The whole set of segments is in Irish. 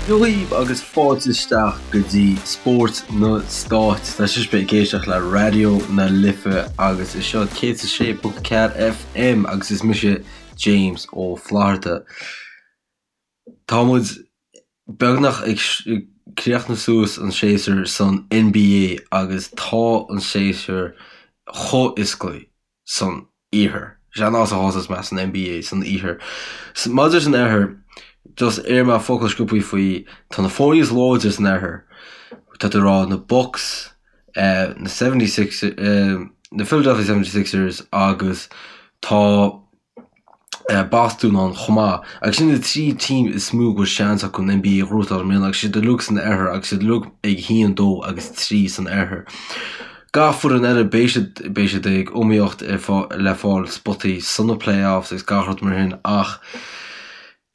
Dia dhaoibh agus fáilte isteach go dtí Spórt na Stáit. Tá sibh ag éisteacht le Raidió na Life agus is seo 106.4 FM agus is mise James Ó Flatharta. Tá muid beagnach ag críochnú suas an séasúr san NBA agus tá an séasúr chomh iosclaí san Iarthar. Sé an áit a thosós mé san NBA san Iarthar. Maidir leis an Oirthear, just iarr mé focal sciobthaí faoi, tá na foirne is láidre san Oirthear, tá tú ag rá na Bucks, na 76, na Philadelphia 76ers agus tá Bostún ann chomh maith. Agus sin na 3 team is mó go bhfuil seans acu an NBA a ghnóthachtáil i mbliana agus siad uilig san Oirthear agus siad uilig ag 1, 2 agus 3 san Oirthear. Gach foireann eile beidh siad beidh siad ag iomaíocht le fáil spotaí sna playoffs agus gach rud mar sin ach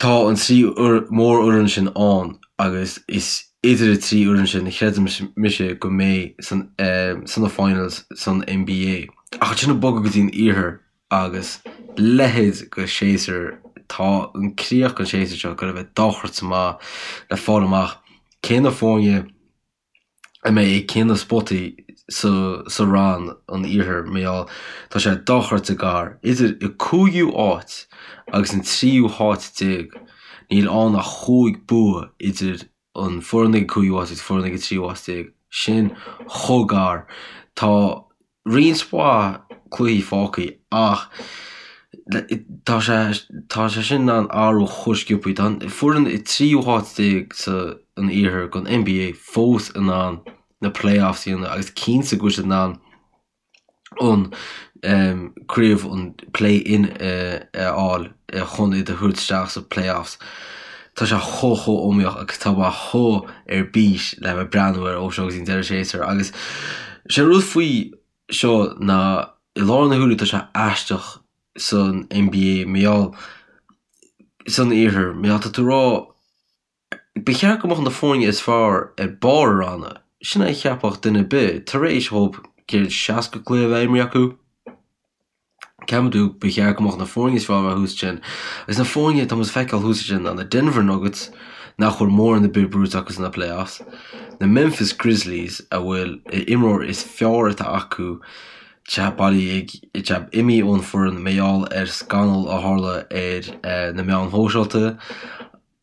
tá an 3 mórfhoireann sin ann agus is idir an 3 fhoireann sin a chreidim mise go mbeidh san sna finals san NBA. Ach ansin ag bogadh go dtí an Iarthar agus leithéid de shéasúr, tá an críoch den séasúr seo ag goil a bheith dochreidte maith le fáil amach cé na foirne a mbeidh ag cé na spotaí sa sa rann an iarthair mar gheall tá sé dochreidte gar idir an cúigiú áit agus an tríú háit déag níl ann ach chúig bua idir an foireann ag an cúigiú háit agus foireann ag an tríú háit déag. Sin chomh gar. Tá roinnt mhaith cluichí fágtha ach tá sé tá sé sin in ann athrú chomh sciobtha. Tá an foireann i tríú háit déag sa an iarthar den NBA fós in ann na playoffs a dhéanamh agus cinnte go bhfuil siad in ann an craobh an play-in a fháil chun iad a thabhairt isteach sa playoffs. Tá sé chomh chomh iomaíoch agus tá mé chomh ar bís le bheith breathnú air ó seo go dtí an deireadh séasúir agus sé an rud faoi seo ná i láthair na huaire tá sé aisteach san NBA mar gheall san iarthar mar gheall tá tú ag rá Ba cheart go mbeadh na foirne is fearr ar barr a ranna, sin é a cheapfadh duine ar bith, tar éis dhóibh 160 cluiche a bheith imrithe acu. Ceapann tú, ba cheart go mbeadh na foirne is fearr a bheith thuas ansin. Agus na foirne atá muid ag feiceáil thuas ansin ná na Denver Nuggets, nach bhfuil mórán ar bith buaite acu sna playoffs, na Memphis Grizzlies a bhfuil a imreoir is fearr atá acu te bailithe ag te imithe ón foireann mar gheall ar scannal a tharla ar na meáin shóisialta,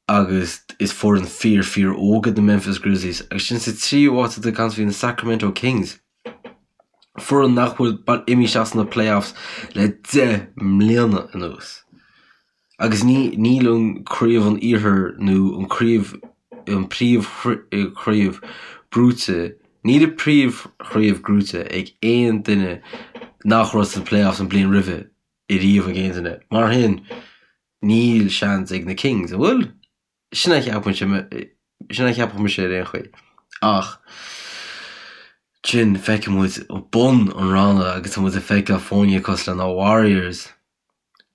agus is foireann fíor fíor óg iad na Memphis Grizzlies agus ansin sa tríú háit tá caint faoi na Sacramento Kings, foireann nach bhfuil imithe isteach sna playoffs le 10 mbliana anuas. Agus ní níl an craobh an iarthair nó an craobh an príomh chraobh buaite níl an príomh chraobh gnóite ag aon duine nach raibh sna playoffs an bliain roimhe ariamh ag aon duine. Mar sin Níl seans ag na Kings, an bhfuil? Sin a cheapann sin a cheapfadh mise ar aon chaoi. Ach ansin feiceann muid bun an ranna agus tá muid ag feiceáil foirne cosúil le na Warriors,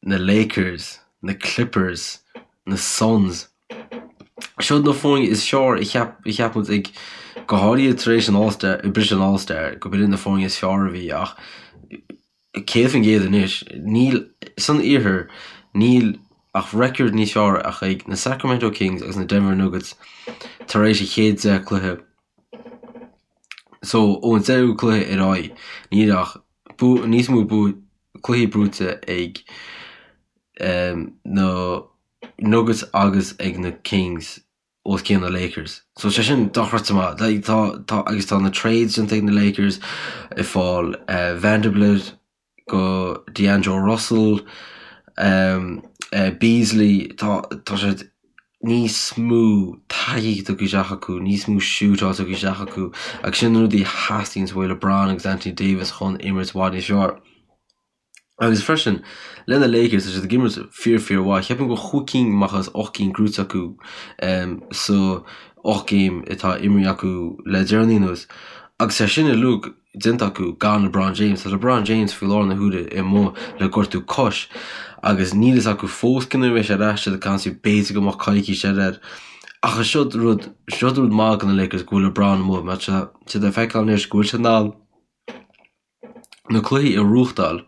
na Lakers, na Clippers, na Suns. Seo na foirne is fearr a cheap a cheap muid ag go háirithe tar éis an All-Star, briseadh an All-Star, go b'in na foirne is fearr a bhí ach 100% anois. Níl, san iarthar, níl ach record níos fearr ach ag na Sacramento Kings agus na Denver Nuggets tar éis a chéad 10 cluiche. So, ón deichiú cluiche ar aghaidh, níl ach níos mó cluichí buaite ag na Nuggets agus ag na Kings. os cionn na Lakers. So sé sin dochreidte maith. Like, tá, tá, agus tá na trades déanta ag na Lakers ag fáil uh, Vanderbilt go D'Angelo Russell, um, uh, Beasley, tá, tá siad níos mó taithí tugtha isteach acu, níos mó shootáil tugtha isteach acu, agus sin na rudaí a theastaíonn uaidh LeBron agus Anthony Davis chun imirt i bhfad níos fearr. Agus freisin, le na Lakers, tá siad ag imirt fíor fíor mhaith. Cheapfainn go bhfuil chúig cinn amach as 8 gcinn gnóite acu sa 8 game atá imrithe acu le deireanaí anuas. Agus é sin uilig déanta acu gan LeBron James. Tá LeBron James faoi láthair na huaire amuigh le gortú cois agus níl fhios acu fós cén uair a bheidh sé ar ais, siad ag caint faoi b'fhéidir go mbeadh coicís eile air. Ach seo rud, seo rud maith do na Lakers go bhfuil LeBron amuigh mar tá siad ag feiceáil anois go bhfuil sé in ann na cluichí a ghnóthachtáil.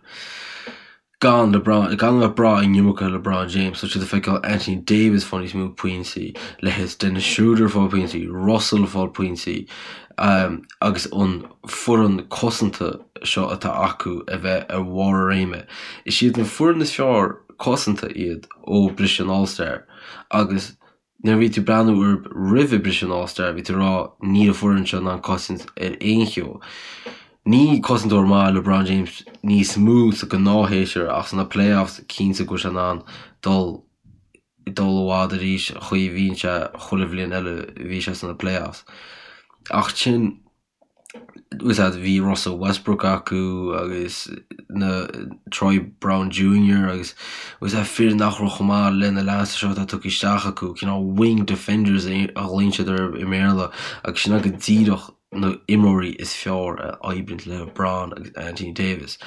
Gan LeBron, gan a bheith ag brath an iomarca ar LeBron James, tá siad ag feiceáil Anthony Davis fáil níos mó pointí, leithéid Dennis Schroeder fáil pointí, Russell fáil pointí, agus an foireann cosanta seo atá acu a bheith ar bharr a réime. Is iad an foireann is fearr cosanta iad ó briseadh an All-Star agus Nuair a bhí tú ag breathnú orthu roimhe briseadh an All-Star, bhí tú ag rá níl an foireann seo in ann cosaint ar aon cheo. Ní cosantóir maith LeBron James níos mó sa gnáthshéasúr ach sna playoffs cinnte go bhfuil sé in ann dul dul i bhfad arís an chaoi a bhíonn sé chuile bhliain eile a bhí sé sna playoffs. Ach sin bhí Russell Westbrook acu agus na Troy Brown Junior agus was that fir nach raibh chomh maith le na leaids seo atá tugtha isteach acu, cineál wing defenders a ghlaonn siad orthu i mBéarla agus sin go díreach na imreoirí is fearr a oibríonn le LeBron agus Anthony Davis.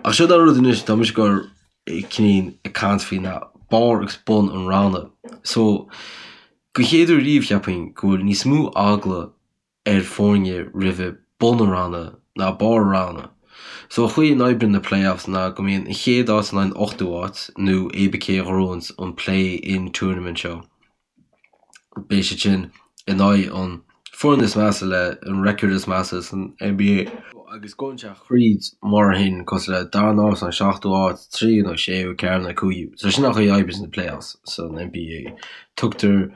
Ach seo an rud anois, tá mise ag goil cineál ag caint faoi na barr agus bun an ranna. So, go chéad uair riamh cheapfainn go bhfuil níos mó eagla ar foirne roimhe bun an ranna ná barr an ranna. So an chaoi a n-oibríonn na playoffs ná go mbíonn an chéad áit in aghaidh an ochtú áit nó cibé cé a ghnóthaíonns an play-in tournament seo. Beidh siad sin in aghaidh an foireann is measa le an record is measa san NBA. Agus gabhann sé thríd mar shin cosúil le darna áit nó seachtú áit, tríú nó séú, ceathrú nó cúigiú. So sin an chaoi a oibríonn na playoffs san NBA. Tugtar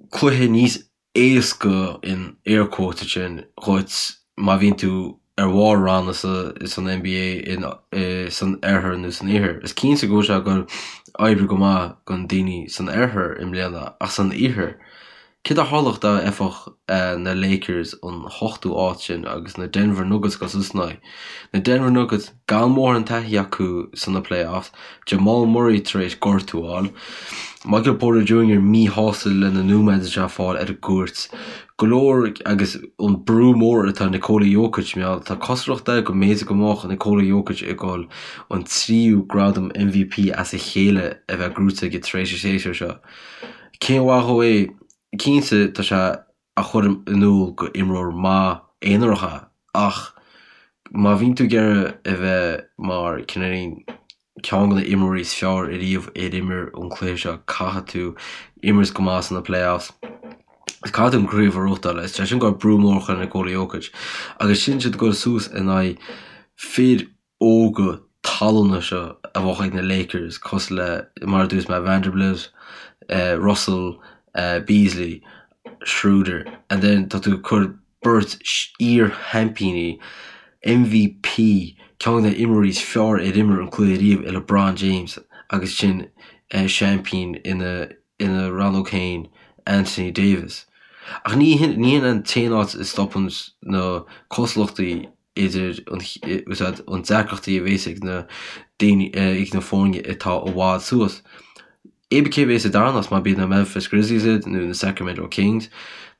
cluiche níos éasca in air quotes ansin dhuit má bhíonn tú ar bharr ranna san NBA san oirthear nó san iarthar. Is cinnte go bhfuil sé ag goil oibriú go maith don daoine san oirthear i mbliana ach san iarthar, céard a tharlódh dá bhfaighfeadh na Lakers an hochtú áit sin agus na Denver Nuggets ag dul suas ina aghaidh? Na Denver Nuggets gan mórán taithí acu sna playoffs, Jamal Murray tar éis gortú a fháil, Michael Porter Jr míshásta le na nóiméid atá sé ag fáil ar an gcúirt, go leor agus an brú mór atá ar Nikola Jokic, mar tá cosúlacht air go mb'fhéidir go mbeadh Nikola Jokic ag dul an tríú gradam MVP as a chéile a bheith gnóite aige tar éis an séasúr seo. Cén mhaith dhó é? Cinnte tá sé a chur in iúl gur imreoir maith aonarach é ach má bhíonn tú ag iarraidh a bheith mar cineáilín ceann de na imreoirí is fearr ariamh ar imir an cluiche seo caithfidh tú imirt go maith sna playoffs is caithfidh tú an craobh a ghnóthachtáil. Is é sin go brú mór a chur ar Nikola Jokic agus sin siad ag dul suas in aghaidh fir óga tallanna seo a bheadh ag na Lakers cosúil le, mar a dúirt mé, Vanderbilt, Russell, Beasley, Schroeder and then tá tú ag cur beirt iar-sheaimpíní, MVP, ceann de na imreoirí is fearr ar imir an cluiche riamh i LeBron James agus sin seaimpín ina ina rannóg féin, Anthony Davis. Ach ní hin an t-aon áit a stopann na cosúlachtaí idir an deacrachtaí a bhéas ag na daoine, ag na foirne atá i bhfad suas. Cibé cé a bhéas sa darna háit, má b'iad na Memphis Grizzlies iad nó na Sacramento Kings,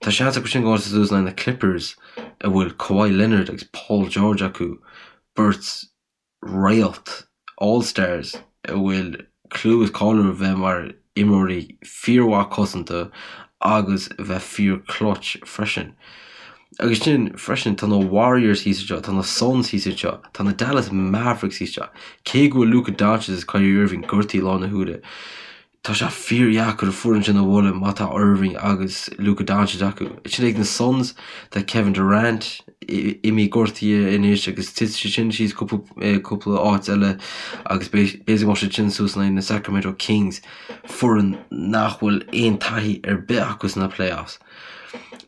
tá seans acu sin gabháil suas in aghaidh na Clippers a bhfuil Kawhi Leonard agus Paul George acu, beirt réalt, All Stars, a bhfuil clú is cáil orthu bheith mar imreoirí fíormhaith cosanta agus a bheith fíor clutch freisin. Agus sin freisin tá na Warriors thíos anseo, tá na Suns thíos anseo, tá na Dallas Mavericks thíos anseo. Cé go bhfuil Luka Doncic is Kyrie Irving gortaithe i láthair na huaire, Tá sé fíordheacair an foireann sin a bhualadh má tá Irving agus Luka Doncic acu. Ansin ag na Suns, tá Kevin Durant imithe gortaithe anois agus titfidh sé sin síos cúpla áit eile agus b'fhéidir go mbeadh siad sin suas in aghaidh na Sacramento Kings, foireann nach bhfuil aon taithí ar bith acu sna playoffs.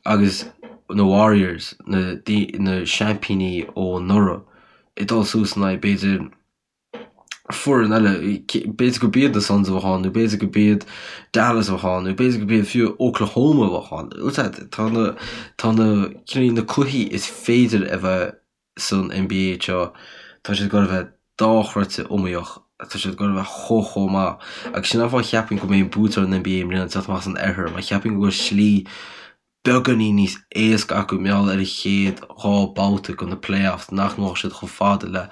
Agus na Warriors, na seaimpíní ó anuraidh, ag dul suas in aghaidh b'fhéidir foireann eile, b'fhéidir go b'iad na Suns a bheadh ann, nó b'fhéidir go b'iad Dallas a bheadh ann, nó b'fhéidir go b'iad fiú Oklahoma a bheadh ann. Tá na, tá na, cineál na cluichí is féidir a bheith san NBA seo, tá siad ag dul a bheith dochreidte iomaíoch, tá siad ag dul a bheith chomh chomh maith. Agus sin an fáth a cheapaim go mbeidh an buaiteoir an NBA i mbliana ag teacht amach as an oirthear, mar cheapaim go bhfuil slí beagáinín níos éasca acu mar gheall ar an chéad 2 babhta de na playoffs nach ngabhfaidh siad chomh fada le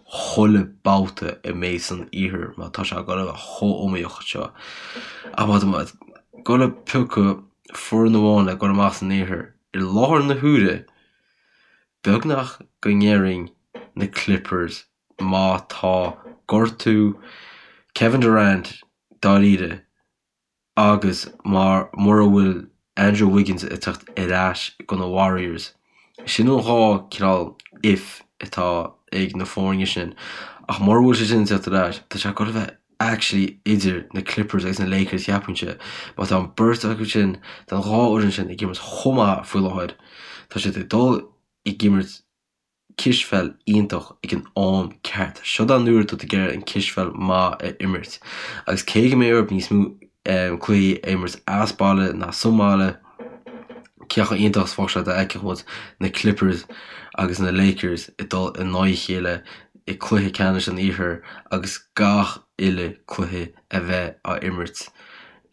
chuile babhta a mbeidh san iarthar mar tá sé ag dul a bheith chomh iomaíoch seo. Ach má tá mé ag dul a piocadh foireann amháin le dul amach san iarthar i láthair na huaire, beagnach go ndéarfainn na Clippers. má tá gortú Kevin Durant dáiríre agus mar mura bhfuil Andrew Wiggins ag teacht ar ais go na Warriors. Sin an dá cineál if atá ag na foirne sin. Ach mura bhfuil sé sin ag teacht ar ais, tá sé ag dul a bheith actually idir na Clippers agus na Lakers cheapfainnse. Má tá an beirt acu sin, tá an dhá fhoireann sin ag imirt chomh maith faoi láthair, tá siad ag dul ag imirt cispheil iontach ag an am ceart. Seo an uair atá tú ag iarraidh an cispheil maith a imirt. Agus cé go mbeidh orthu níos mó cluichí a imirt as baile ná sa mbaile, cé chomh iontach is bheadh sé dá bhfeicfeadh muid na Clippers agus na Lakers ag dul in aghaidh a chéile i cluiche ceannais an Iarthair agus gach uile cluiche a bheith á imirt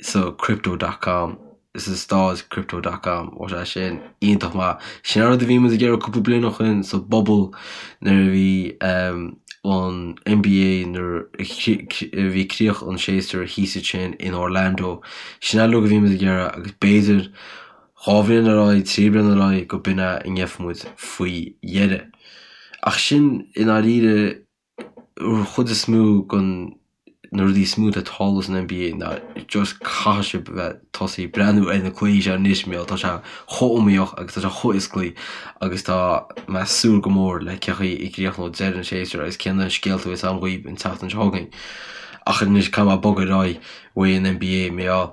sa Crypto dot com. sa staid Crypto dot com. Bheadh sé sin iontach maith. Sin an rud a bhí muid ag iarraidh cúpla bliain ó shin sa bubble nuair a bhí an NBA nuair a bhí críoch an séasúir thíos ansin in Orlando. Sin an rud a bhí muid ag iarraidh agus b'fhéidir 2 bhliain ar aghaidh, 3 bliana ar aghaidh go b'in é a ngeobhaidh muid faoi dheireadh. Ach sin i ndáiríre an chuid is mó den na rudaí is mó atá ag tarlú san NBA ná just caithfidh sibh bheith tosaí ag breathnú ar na cluichí seo anois mar tá sé chomh iomaíoch agus tá sé chomh hiosclaí agus tá mé ag súil go mór le cé chaoi a gcríochnóidh deireadh an séasúir agus cén na scéalta a bheas agam dhaoibh an tseachtain seo chugainn. Ach anois caithfidh mé bogadh ar aghaidh uaidh an NBA mar gheall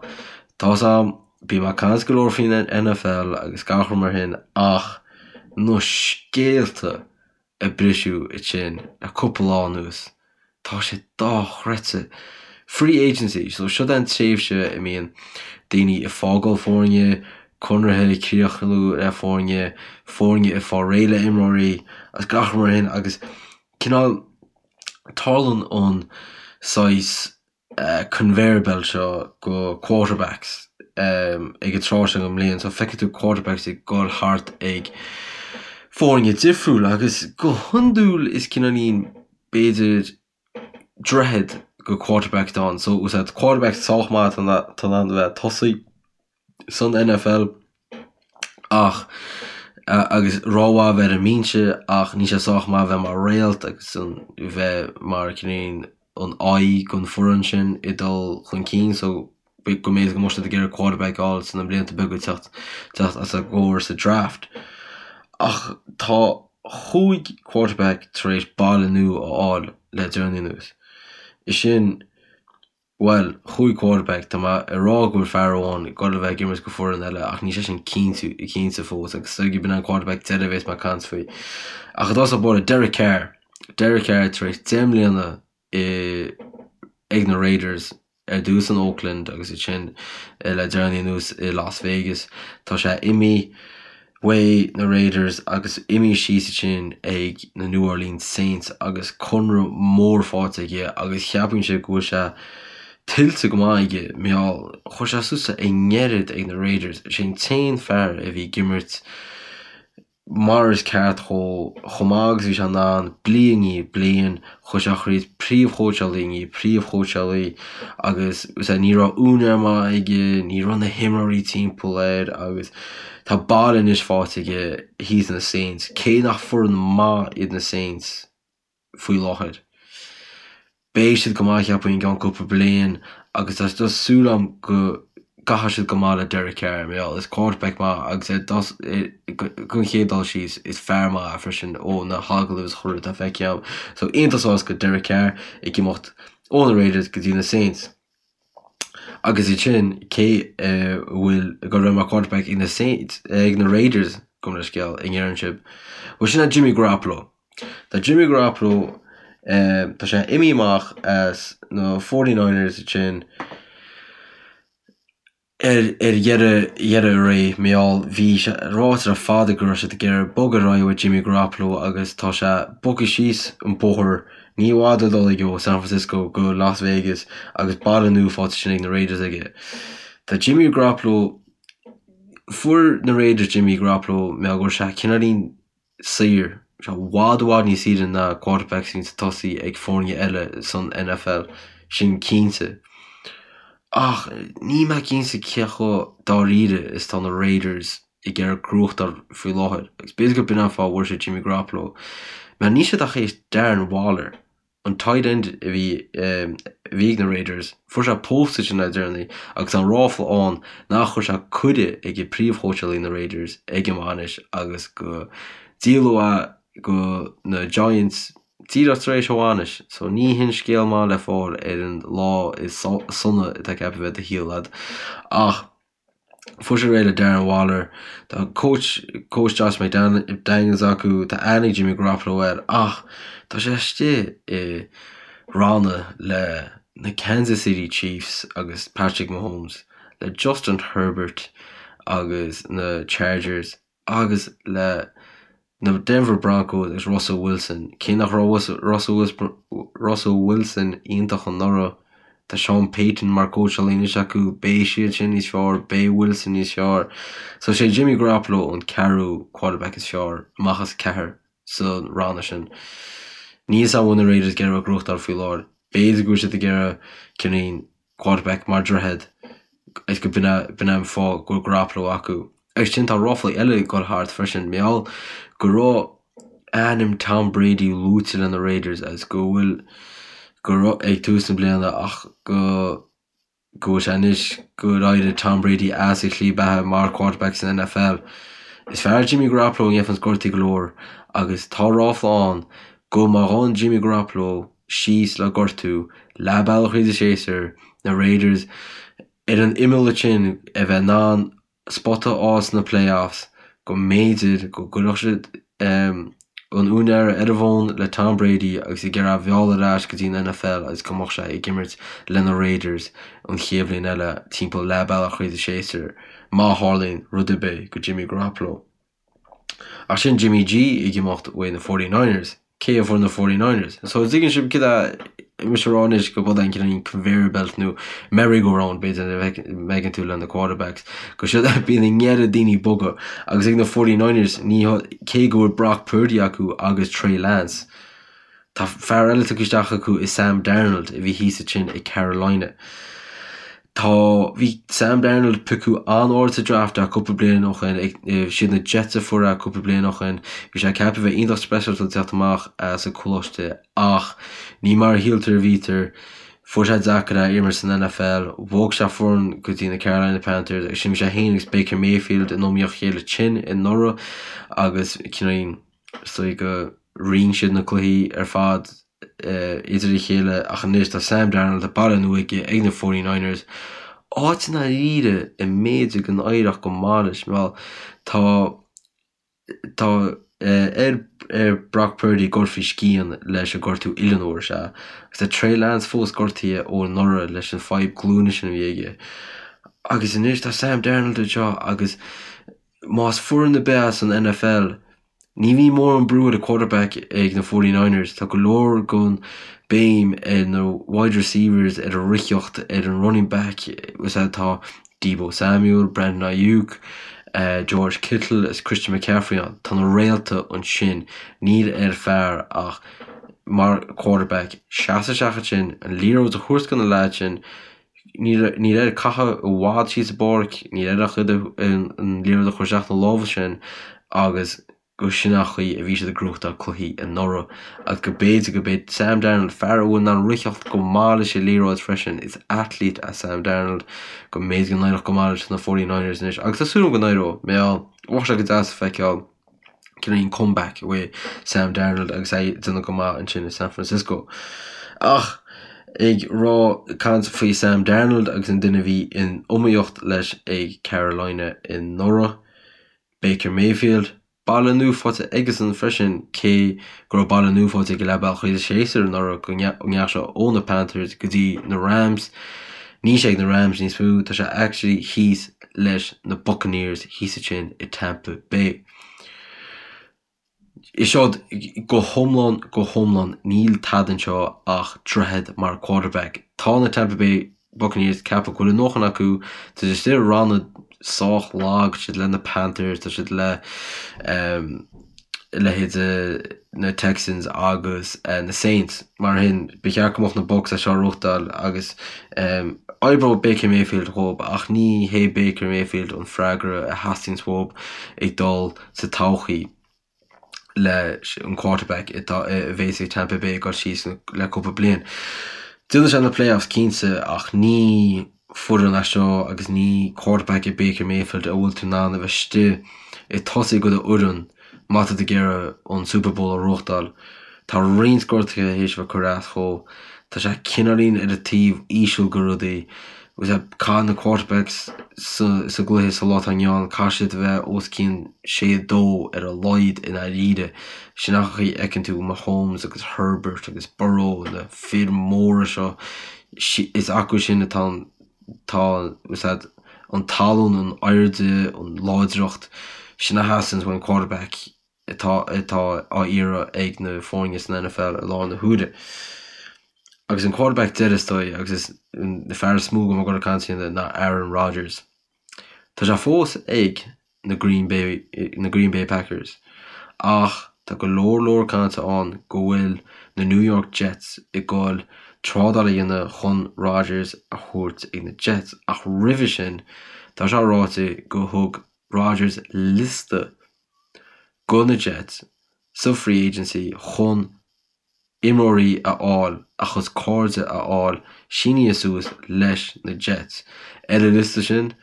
tá's a'm bíonn mé ag caint go leor faoin NFL agus gach rud mar shin ach na scéalta a briseadh ansin le cúpla lá anuas. Tá sé dochreidte. Free agency, so seo é an tréimhse a mbíonn daoine ag fágáil foirne, conartha ag críochnú le foirne, foirne ag fáil réidh le imreoirí agus gach rud mar shin agus cineál tarlaíonn an saghas conveyor belt seo go quarterbacks ag an tráth seo den mbliain. So feicfidh tú quarterbacks ag dul thart ag foirne difriúla agus go hiondúil is cineáilín b'fhéidir droichead go quarterback atá ann. So úsáid quarterback sách maith atá in ann a bheith ag tosaí san NFL ach agus rómhaith a bheith ar an mbinse ach níl sé sách maith a bheith mar réalt agus an bheith mar cineáilín an aghaidh don foireann sin ag dul chun cinn so go mb'fhéidir go mbeadh siad ag iarraidh quarterback a fháil sna blianta beaga teacht teacht os a gcomhair sa draft. Ach tá chúig quarterback tar éis baile nua a fháil le deireanaí anuas. Is sin, bhuel, chúig quarterback, tá mé ag rá go bhfuil fear amháin ag dul a bheith ag imirt go foireann eile ach níl sé sin cinnte cinnte fós agus is dóigh gurb in an quarterback deiridh a bheas mé ag caint faoi. Ach i dtosach báire, Derek Carr. Derek Carr tar éis 10 mbliana i ag na Raiders, ar dtús in Oakland agus ansin le deireanaí anuas i Las Vegas. Tá sé imithe uaidh na Raiders agus imithe síos ansin ag na New Orleans Saints agus conradh mór faighte aige agus cheapfainnse go bhfuil sé tuillte go maith aige mar gheall chuir sé suas i ngairid ag na Raiders. Sé an t-aon fear a bhí ag imirt mar is ceart dhó, chomh maith agus bhí sé in ann, bliain i ndiaidh bliain, chuaigh sé thríd príomhchóitseálaí i ndiaidh príomhchóitseálaí agus ní raibh úinéir maith aige, ní raibh na himreoirí timpeall air agus tá baile anois faighte aige thíos na Saints, cé nach foireann maith iad na Saints. faoi láthair. Beidh siad go maith cheapfainn i gceann cúpla bliain agus tá just súil agam go gcaithfidh siad go maith le Derek Carr mar gheall is quarterback maith agus ar don chéad dul síos is fear maith é freisin ó na hagallaimh is chuile rud atá feicthe agam. So iontach sásta Derek Carr ag imeacht ó na Raiders go dtí na Saints. Agus ansin cé a bhfuil ag dul a bheith mar quarterback ag na Saints ag na Raiders gabh mo leithscéal an ndeireann sibh. Bhuel sin é Jimmy Garoppolo. Tá Jimmy Garoppolo tá sé imithe amach as na 49ers ansin ar ar dheireadh dheireadh a ré mar gheall bhí sé ráite le fada go raibh siad ag iarraidh bogadh ar aghaidh ó Jimmy Garoppolo agus tá sé bogtha síos an bóthar ní i bhfad le dul aige ó San Francisco go Las Vegas agus baile nua faighte ansin ag na Raiders aige. Tá Jimmy Garoppolo fuair na Raiders Jimmy Garoppolo mar go raibh sé cineáilín saor, sé i bhfad i bhfad níos saoire ná quarterbacks a bhíonn ag tosaí ag foirne eile san NFL, sin cinnte. Ach níl mé cinnte cé chomh dáiríre is atá na Raiders ag iarraidh gnóthachtáil faoi láthair, agus b'fhéidir gur b'in an fáth a bhfuair siad Jimmy Garoppolo, mar níl siad ach théis Darren Waller. An tight end a bhí a bhí ag na Raiders, fuair sé pósta ansin le deireanaí agus tá an ráfla ann nach chuir sé cuireadh ag príomhchóitseálaí na Raiders ag an bhainis agus go díoladh é go na Giants díreach tar éis a bhainis. So ní hin scéal maith le fáil ar an lá is sona atá ceaptha a bheith i do shaol a'd. Ach. Fuair sé réidh le Darren Waller. Tá coach coach Josh McDaniels acu, tá aithne ag Jimmy Garoppolo air ach tá sé istigh i ranna le na Kansas City Chiefs agus Patrick Mahomes, le Justin Herbert agus na Chargers agus le na Denver Broncos agus Russell Wilson. Cé nach raibh Russell Wilson iontach anuraidh, tá Sean Payton mar cóitseálaí anois acu, beidh siad sin níos fearr, beidh Wilson níos fearr. So sé Jimmy Garoppolo an ceathrú quarterback is fearr amach as ceathair sa ranna sin. Níl 'fhios a'm an bhfuil na Raiders ag iarraidh gnóthachtáil faoi láthair. B'fhéidir go bhfuil siad ag iarraidh cineál quarterback mar droichead is go b'in é an fáth go bhfuil Garoppolo acu. Agus sin tá ráflaí eile ag dul thart freisin, mar gheall go raibh ainm Tom Brady luaite le na Raiders agus go bhfuil go raibh ag tús na bliana ach go go bhfuil sé anois gur éirigh Tom Brady as a shlí beatha mar quarterback san NFL. Is fearr Jimmy Garoppolo a gheibheanns gortaí go leor agus tá ráfla ann go má ghabhann Jimmy Garoppolo síos le gortú leath bealach thríd an séasúr, na Raiders ar an imeall ansin a bheith in ann spota a fháil sna playoffs, go mb'fhéidir go gcuirfeadh siad an úinéara ar an bhfón le Tom Brady agus ag iarraidh é a mhealladh ar ais go dtí an NFL agus go mbeadh sé ag imirt le na Raiders an chéad bhliain eile timpeall leath bealach thríd an séasúr má tharlaíonn rud ar bith go Jimmy Garoppolo. Ach sin Jimmy G ag imeacht uaidh na 49ers. Cé a fuair na 49ers? So tuigeann sibh céard atá mise a rá anois go bhfuil an cineál conveyor belt nó merry go round b'fhéidir a bhfeiceann tú le na quarterbacks go siad bíonn an oiread daoine ag bogadh agus ag na 49ers ní cé go bhfuil Brock Purdy acu agus Trey Lance Tá fear eile tugtha isteach acu i Sam Darnold a bhí thíos ansin ag Carolina. Tá, bhí Sam Darnold piocadh an-ard sa draft cúpla bliain ó shin, siad na Jets a fuair é cúpla bliain ó shin. Bhí sé ceaptha a bheith iontach speisialta ag teacht amach as an coláiste ach ní mar a shíltear a bhítear. Fuair sé deacair é imirt san NFL, bhog sé foireann go dtí na Carolina Panthers agus sin bhí sé féin agus Baker Mayfield in iomaíocht a chéile tinn anuraidh agus cineál Is dóigh go roinn siad na cluichí ar fad idir a chéile ach anois tá Sam Darnold, tá baile nua aige ag na 49ers, áit i ndáiríre a mb'fhéidir go n-éireodh go maith leis. Bhuel, tá tá ar ar Brock Purdy dul faoi scian leis an gortú uillinn a fuair sé agus tá Trey Lance fós gortaithe ó anuraidh leis an fadhb glúine sin a bhí aige. Agus anois tá Sam Darnold anseo agus Más foireann ar bith as an NFL, ní bhíonn mórán brú ar an quarterback ag na 49ers. Tá go leor den béim ar na wide receivers, ar an ritheacht, ar an running back. Is ea tá Deebo Samuel, Brandon Aiyuk, George Kittle is Christian McCaffrey ann. Tá na réalta ansin. Níl ar fear ach mar quarterback seasamh isteach ansin, an liathróid a thabhairt do na leaids sin, Níl air caitheamh i bhfad síos an bpáirc, níl air ach an liathróid a chur isteach na lámha sin agus go sin an chaoi a bhí siad ag gnóthachtáil cluichí anuraidh agus go b'fhéidir go mbeidh Sam Darnold, fear a bhfuil in ann ritheacht go maith leis an liathróid freisin, is athlete é Sam Darnold, go mb'fhéidir go n-éireodh go maith leis na 49ers anois agus tá súil agam go n-éireodh, mar gheall, bheadh sé go deas a feiceáil. cineál comeback uaidh Sam Darnold agus é ag déanamh go maith ansin i San Francisco. Ach ag rá caint faoi Sam Darnold agus an duine a bhí in iomaíocht leis ag Carolina anuraidh, Baker Mayfield, baile nua faighte aigesan freisin cé go raibh baile nua faighte aige leath bealach thríd an séasúr anuraidh go ndeachaigh sé ó na Panthers go dtí na Rams. Níl sé ag na Rams níos mó, tá sé actually thíos leis na Buccaneers thíos ansin i Tampa Bay. Is seod go hiomlán, go hiomlán, níl tada anseo ach droichead mar quarterback. Tá na Tampa Bay Buccaneers ceaptha go bhfuil a ndóthain acu, tá siad istigh i ranna sách lag, tá siad le na Panthers, tá siad le leithéid na Texans agus na Saints. Mar sin, ba cheart go mbeadh na Bucs é seo a ghnóthachtáil agus oibreoidh Baker Mayfield dhóibh ach ní hé Baker Mayfield an freagra a theastaíonns uathub ag dul sa todhchaí. Leis an quarterback atá a bhéas ag Tampa Bay ag dul síos le cúpla bliain. Déanfaidh sé na playoffs cinnte ach ní foireann é seo agus ní quarterback é Baker Mayfield a bhfuil tú in ann a bheith istigh ag tosaí do do fhoireann má tá tú ag iarraidh an Super Bowl a ghnóthachtáil. Tá roinnt gortuithe théis a bheith curtha as dhó. Tá sé cineáilín ar an taobh íseal de rudaí. Agus caithfidh na quarterbacks sa gcluiche sa lá atá inniu ann, caithfidh siad a bheith os cionn 6 2 ar a laghad i ndáiríre. Sin an chaoi a fheiceann tú Mahomes agus Herbert agus Burrow, na fir mhóra seo, is acu sin atá an tá an tallann, an airde, an láidreacht, sin a theastaíonn ón quarterback. atá atá á iarraidh ag na foirne san NFL i láthair na huaire. Agus an quarterback deiridh is dóigh agus is an fear is mó go mbeidh ag caint faoi ná Aaron Rodgers. Tá sé fós ag na Green Bay na Green Bay Packers ach tá go leor leor cainte ann go bhfuil na New York Jets ag goil trádáil a dhéanamh chun Rodgers a thabhairt ag na Jets ach roimhe sin tá sé ráite go thug Rodgers liosta go na Jets sa free agency chun imreoirí a fháil, a chuid cairde a fháil sínithe suas leis na Jets. Ar an liosta sin,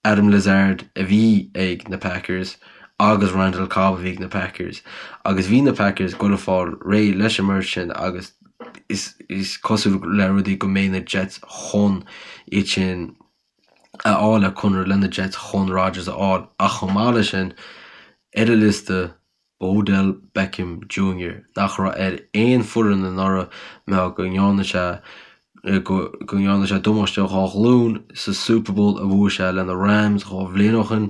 Allen Lazard a bhí ag na Packers agus Randall Cobb a bhí ag na Packers agus bhí na Packers ag goil a fáil réidh leis an mbeirt sin agus is cosúil le rudaí go mbeidh na Jets chun iad sin a fháil le conradh le na Jets chun Rodgers a fháil ach chomh maith leis sin, ar an liosta, Odell Beckham Jr. nach raibh ar aon foireann anuraidh mar go ndearna sé go ndearna sé damáiste dhá ghlúin sa Super Bowl a bhuaigh sé le na Rams 2 bhliain ó shin.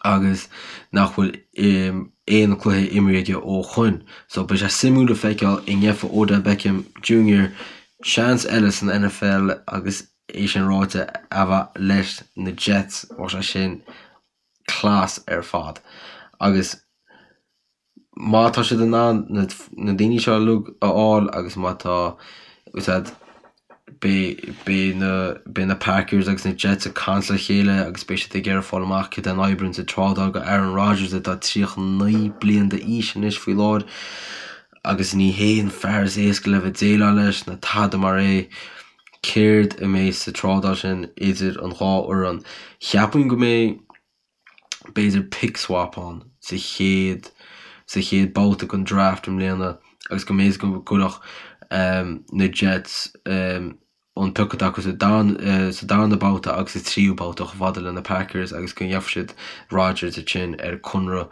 agus nach bhfuil aon cluiche imrithe aige ó shoin. So beidh sé suimiúil le feiceáil an ngeobhaidh Odell Beckham Jr. seans eile san NFL agus é sin ráite a bheith leis na Jets bheadh sé sin class ar fad. Agus má tá siad in ann na daoine seo uilig a fháil agus má tá siad beidh na beidh na Packers agus na Jets ag caint le chéile agus beidh siad ag iarraidh fáil amach cad é an oibríonn sa trádáil go Aaron Rodgers atá 39 bliain d'aois anois faoi láthair agus ní hé an fear is éasca le bheith déileáil leis ná tada mar é. Céard a mbeidh sa trádáil sin idir an dhá fhoireann? Cheapfainn go mbeidh b'fhéidir pick swap ann sa chéad sa chéad babhta den draft i mbliana agus go mb'fhéidir go gcuirfeadh na Jets an pioc atá acu sa sa darna babhta agus sa tríú babhta chomh fada le na Packers agus go ngeobhaidh siad Rodgers ansin ar conradh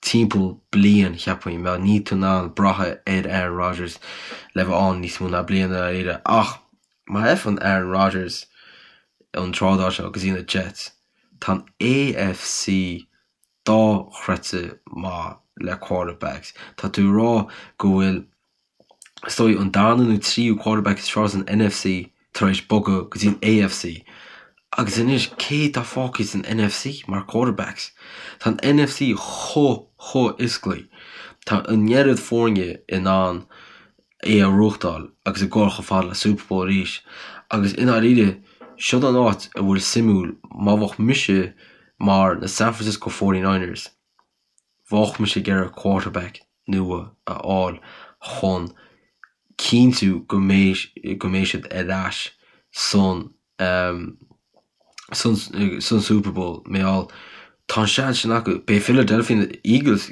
timpeall bliain cheapfainn mar níl tú in ann brath ar Aaron Rodgers le bheith ann níos mó ná bliain i ndáiríre ach má fhaigheann Aaron Rodgers an trádáil seo go dtí na Jets Tá an AFC dochreidte maith le quarterbacks. Tá tú ag rá go bhfuil, is dóigh, an darna nó tríú quarterback is fearr san NFC tar éis bogadh go dtí an AFC. Agus anois, cé atá fágtha san NFC mar quarterbacks? Tá an NFC chomh, chomh oscailte. Tá an oiread foirne in ann é a ghnóthachtáil agus ag gabháil chomh fada le Super Bowl arís. Agus i ndáiríre, siod an áit a bhfuil suimiúil, má bheadh mise mar na San Francisco 49ers, bheadh mise ag iarraidh quarterback nua a fháil chun cinntiú go mbeidh go mbeidh siad ar ais san san san Super Bowl. Mar gheall, tá an seans sin acu. Beidh Philadelphia Eagles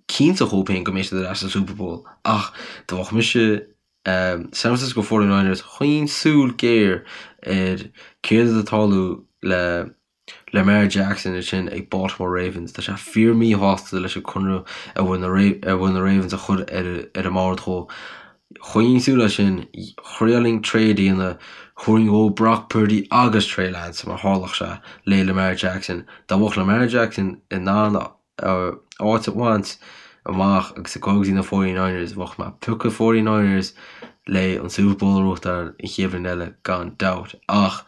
cinnte dhóibh féin go mbeidh siad ar ais sa Super Bowl ach dá mbeadh mise San Francisco 49ers choinnfinn súil géar ar céard atá ag tarlú le Lamar Jackson ansin ag Baltimore Ravens. Tá sé fíor míshásta leis an conradh a bhfuil na a bhfuil na Ravens a chur ar ar an mbord dhó. Choinnfinn súil air sin, thriailfinn trade a dhéanamh, thabharfainn dhó Brock Purdy agus Trey Lance mar tharlódh sé le Lamar Jackson. Dá mbeadh Lamar Jackson in ann áit a bhaint amach agus ag dul go dtí na 49ers, bheadh mé ag piocadh 49ers le an Super Bowl a ghnóthachtáil an chéad bhliain eile gan dabht. Ach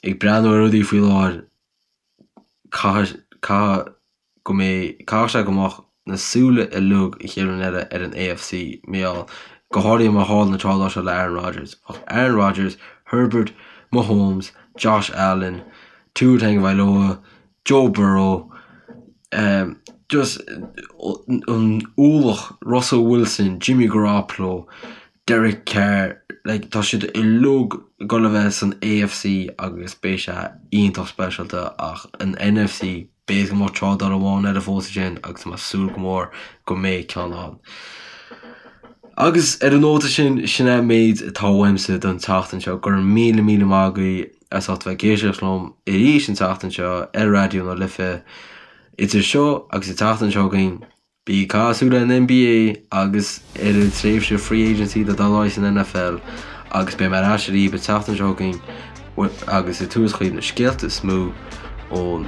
ag breathnú ar rudaí faoi láthair, caithfidh, caithfidh go mbeidh, caithfidh sé go mbeadh na súile uilig an chéad bhliain eile ar an AFC, mar gheall, go háirithe má tharla an trádáil seo le Aaron Rodgers. Bheadh Aaron Rodgers, Herbert, Mahomes, Josh Allen, Tua Tagovailoa, Joe Burrow. Just an ualach, Russell Wilson, Jimmy Garoppolo, Derek Carr, like tá siad uilig ag dul a bheith san AFC agus beidh sé iontach speisialta ach an NFC, b'fhéidir go mbeadh trádáil amháin eile fós ansin agus tá mé ag súil go mór go mbeidh ceann ann. Agus ar an nóta sin, sin é an méid atá uaimse don tseachtain seo. Go raibh míle míle maith agaibh as ucht bheith ag éisteacht liom arís an tseachtain seo ar Raidió na Life. Idir seo agus an tseachtain seo chugainn, bí ag caitheamh súil ar an NBA agus ar an tréimhse free agency atá ag dul ar aghaidh san NFL agus beidh mé ar ais arís an tseachtain seo chugainn agus ag tabhairt chugaibh na scéalta is mó ón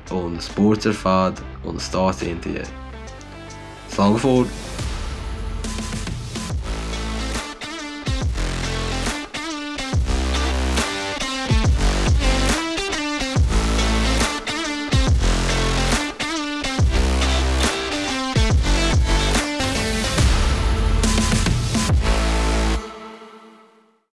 ó na spóirt ar fad ó na Stáit Aontaithe. Slán go fóill!